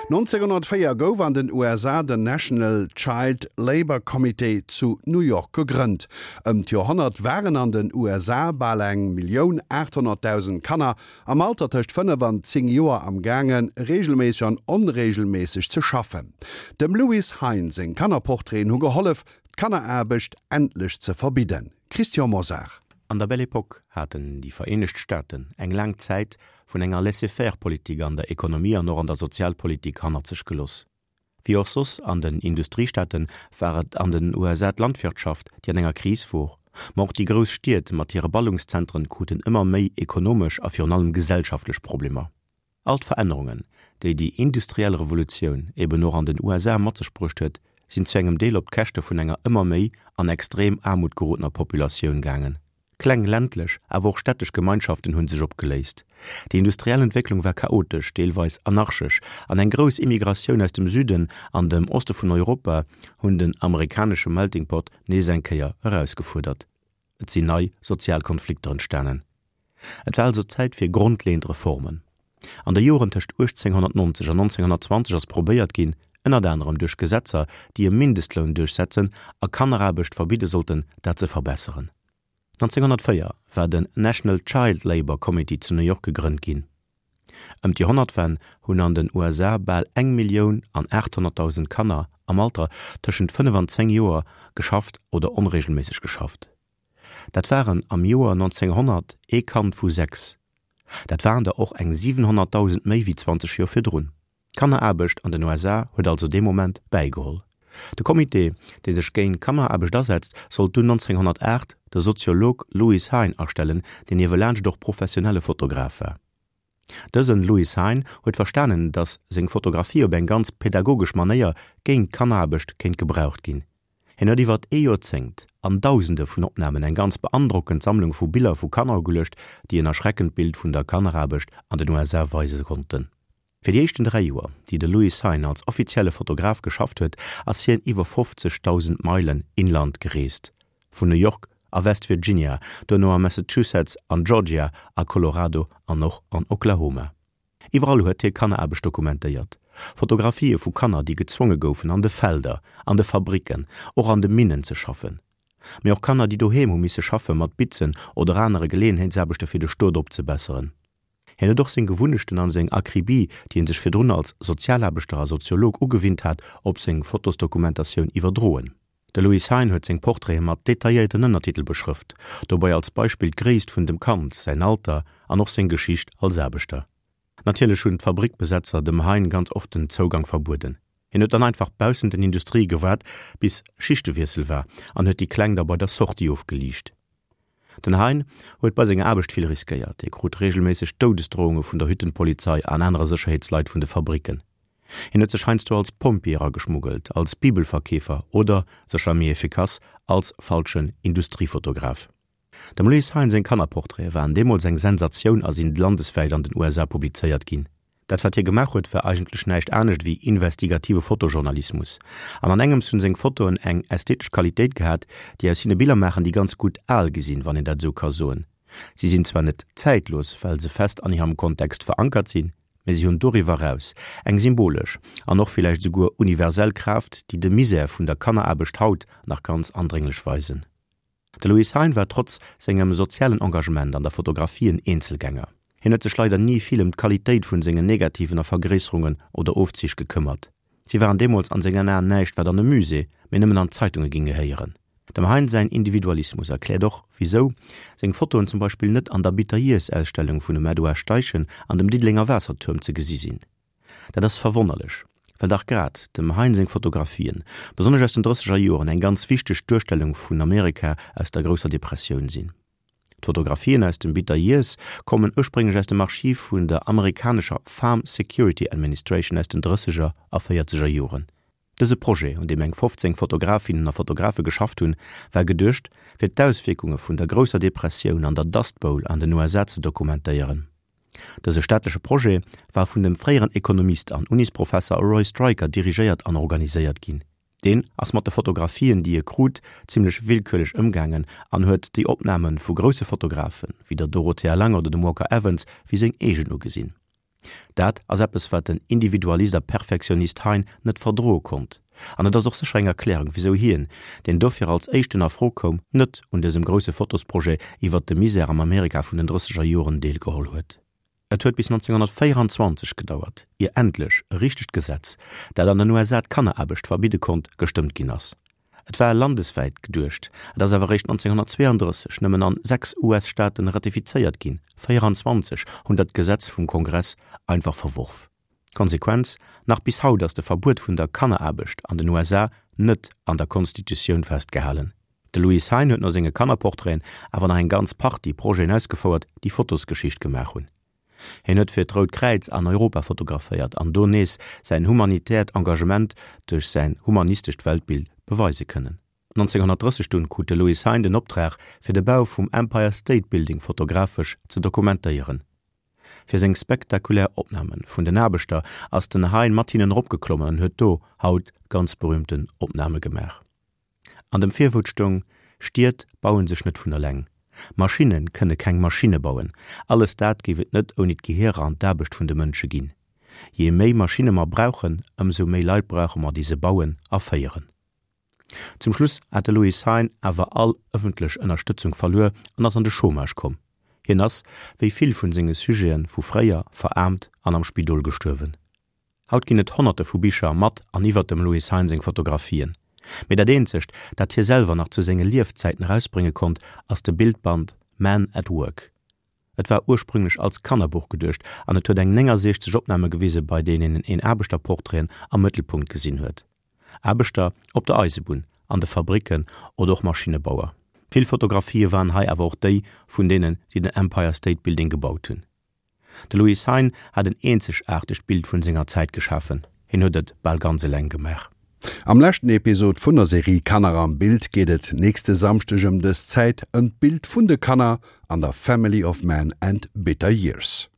1904 gouf an den USA den National Child Labor Committee zu New York gegrënnt. Ëm d'Joerhonnert waren an den USA bal 1.800.000 Kanner am Alter tëscht 5 an 10 Joer am gaange reegelméisseg an onreegelméisseg ze schaffen. Dem Lewis Hine seng Kannerportraiten hu gehollef, d'Kanneraarbecht endlech ze verbidden. Christian Mosar. An der Belle Époque haten déi Vereenegt Staaten eng laang Zäit vun enger Laissez-faire-Politik an der Ekonomie an och an der Sozialpolitik hannert sech geloss. Wéi och soss an den Industriestaate war et an den USA d'Landwirtschaft, déi an enger Kris wor. Ma och déi grouss Stied mat hire Ballungszentren kruten ëmmer méi ekonomesch a virun allem gesellschaftlech Problemer. All d'Verännerungen, déi déi industriell Revolutioun eben och an den USA mat sech bruecht huet, sinn zu engem Deel op d'Käschte vun enger ëmmer méi an extrem Aarmut gerodener Populatioun gaangen. Kleng ländlech, awer och städtesch Gemeinschaften hunn sech opgeléist. Déi industriell Entwécklung war chaotesch, deelweis anarchesch, an eng grouss Immigratioun aus dem Süden an dem Oste vun Europa hunn den amerikanesche Melting Pot nees eng Kéier erausgefuerdert. Et sinn nei sozial Konflikter entstanen. Et war also Zäit fir grondleeënd Reformen. An de Joren tëscht 1890 an 1920 ass probéiert ginn, ënnert anerem duerch Gesetzer, déi e Mindestloun duerchsetzen a Kanneraarbecht verbidde sollten, dat ze verbesseren. 1904 war den National Child Labor Committee zu New York gegrënnt ginn. Ëm d'Joerhonnertwenn hunn an den USA bal eng Millioun an 800.000 Kanner am Alter tëschent 5 an 10 Joer geschafft oder onreegelméisseg geschafft. Dat waren am Joer 1900 ee Kand vu 6. Dat waren der och eng 700.000 méi wéi 20 Joer virdrun. D'Kanneraarbecht an den USA huet also dee Moment bäigeholl. De Comité, dee sech géint Kanneraarbecht asetzt, sollt dunn 1908 de Soziolog Lewis Hine astellen, deen niewelaanscht och professionelle Fotograf war. Dësen Lewis Hine huet verstanen, datt seng Fotografie op eng ganz pädagogesch Manéier géint d'Kanneraarbecht kéint gebraucht ginn. Hien huet iwwert ee Joerzéngt an Dausende vun Opnamen eng ganz beandrockend Sammlung vu Biller vu Kanner ugeluecht, déi en erschreckend Bild vun der Kanneraarbecht an den USA weise konnten. Fir déi éischten 3 Joer, déi de Lewis Hine als offizielle Fotograf geschafft huet, ass hien iwwer 50.000 Meilen inland gereest, vun New York a West Virginia, duerno a Massachusetts, an Georgia, a Colorado an och an Oklahoma. Iwwerall huet hie Kanneraarbecht dokumentéiert, Fotografië vu Kanner, déi gezwonge goufen, an de Felder, an de Fabricken, och an de Minnen ze schaffen. Mee och Kanner, déi doheem hu misse schaffe mat Bitzen oder anere Geleeënheetsaarbechte fir de Stot opzebesseren. Hien huet och seng Gewunnechten an seng Akribie, déi en sech virdrun als Sozialaarbechter a Soziolog ugewinnt hat, op seng Fotosdokumentatioun iwwerdroen. De Louis Hein huet seng Portraite mat detailléierten Ënnertitel beschrëft, dobei als Beispill d'Gréisst vun dem Kand, säin Alter an och seng Geschicht als Aarbechter. Natierlech hunn d'Fabrickbesetzer dem Hein ganz oft den Zougang verbueden. Hien huet dann einfach baussent den Industrië gewaart, bis Schichtewiessel war an huet déi Kleng da bei der Sortie ofgeliicht. Den Hein huet bei senger Aarbecht vill riskéiert. Hie krut reegelméisseg Doudesdrohunge vun der Hüttenpolizei an anere Sécherheetsleit vun de Fabricken. Hien huet sech heiansdo als Pompjee erageschmuggelt, als Bibelverkeefer oder, sécher méi efficace, als falschen Industriefotograf. Dem Louis Hein seng Kannerportraite waren deemools eng Sensatioun a sinn landeswäit an den USA publizéiert ginn. Dat wat hie gemaach huet war eigentlech näischt anescht ewéi investigative Fotojournalismus. An an engems hunn seng Fotoen eng ästhetesch Qualitéit gehat, déi aus hinne Biller maachen, déi ganz gutt al gi sinn, wann een dat esou ka soen. Si sinn zwar net zäitlos, well se fest an hirem Kontext verankert sinn, mee si hunn doriwwer eraus eng symbolesch an och villäicht esouguer universell Kraaft, déi de Misär vun der Kanneraarbecht haut nach ganz andrénglech weisen. De Louis Hein war trotz sengem sozialen Engagement an der Fotografie en Eenzelgänger. Hien huet sech leider ni vill ëm d'Qualitéit vun sengen Negativen a Vergréisserungen oder Ofzich gekëmmert. Si waren deemools an sengen Aen näischt wat an e Musée, mee nëmmen an d'Zeitunge ging gehéieren. Dem Hein säin Individualismus erkläert och, wisou seng Fotoen zum Beispill net an der Bitter Years Ausstellung vun dem Edouard Steichen an dem Diddelenger Waassertuerm ze gesi sinn. Dat ass verwonnerlech, well dach grad dem Hein seng Fotografien, besonnesch aus den drësseger Joren, eng ganz wichteg Duerstellung vun Amerika aus der grousser Depressioun sinn. D'Fotografien aus dem Bitter Years kommen ursprénglech aus dem Archiv vun der amerikanescher Farm Security Administration aus den drësseger a véierzeger Joren. Dëse Projet, un deem eng 15 Fotografinnen a Fotografe geschafft hunn, war geduecht, fir d'Auswierkunge vun der grousser Depressioun an der Dust Bowl an den USA ze dokumentéieren. Dëse staatleche Projet war vun dem fréieren Ekonomist an Unisprofesser Roy Stryker dirigéiert an organiséiert ginn. Deen ass mat de Fotografien, déi e krut, zimmlech willkürlech ëmgaangen an huet déi Opname vu grousse Fotografen, wéi der Dorothea Lange oder dem Walker Evans, wéi seng eegen ugesinn. Dat ass eppes, wat den Individualist a Perfektionist Hein net verdroe konnt. An et ass och sécher eng Erklärung, wisou hien, deen dofir als éischten a Fro koum, net un dësem grousse Fotosprojet iwwert de Misär am Amerika vun den drësseger Joren deelgeholl huet. Et huet bis 1924 gedauert, ier endlech e richtegt Gesetz, dat an den USA d'Kanneraarbecht verbidde konnt, gestëmmt ginn ass. Et war landeswäit geduecht, et ass awer eréischt 1932 nëmmen an 6 US-Staaten ratifizéiert ginn, 24 hunn dat Gesetz vum Kongress einfach verworf. D'Konsequenz, Nach bis haut ass de Verbuet vun der Kanneraarbecht an den USA net an der Konstitutioun festgehalen. De Louis Hein huet no senge Kannerportraiten awer nach eng ganz Partie Projeten ausgefouert, déi Fotosgeschicht gemaach hunn. Hien huet fir d'Rout Kräiz an Europa fotograféiert an do nees säin humanitäert Engagement duerch säin humanistescht Weltbild beweise kënnen. 1930 dunn krut de Louis Hein den Optrag fir de Bau vum Empire State Building fotografesch ze dokumentéieren. Fir seng spektakulär Opname vun den Aarbechter ass den Hein mat hinnen eropgeklommen an huet do haut ganz berühmten Opname gemaach. An dem Virwuert stoung, Stied bauen sech net vun eleng. Maschinne kënne keng Maschinne bauen. Alles dat géif et net ouni d'Gehierer an d'Aarbecht vun de Mënsche ginn. Jee méi Maschinne mer brauchen, ëmsou méi Leit brauche mer, déi se bauen a féieren. Zum Schluss hat de Louis Hein awer all ëffentlech Ënnerstëtzung verluer an ass an de Chômage komm. Hien ass, wéi vill vun senge Sujete vu fréier, veraarmt an am Spidol gestuerwen. Haut ginn et honnerte vu Bicher mat an iwwer dem Louis Hein seng Fotografien. Mee dat eenzegt, dat hie selwer nach zu senge Liefzäiten erausbrénge konnt, ass de Bildband Man at Work. Et war ursprünglech als Kannerbuch geduecht an et huet eng 69 Opname gewise bei deenen een Aarbechterportraiten am Mëttelpunkt gesinn huet. Aarbechter op der Eisebunn, an de Fabricken oder och Maschinnebauer. Vill Fotografië waren hei awer och déi vun deenen, déi den Empire State Building gebaut hunn. De Louis Hein hat en eenzegaartegt Bild vun senger Zäit geschafen, hien huet et bal ganz eleng gemaach. Am leschten Episod vun der Serie Kanner am Bild geet et nächste Samschdeg ëm dës Zäit ëm d'Bild vun de Kanner an der Family of Man and Bitter Years.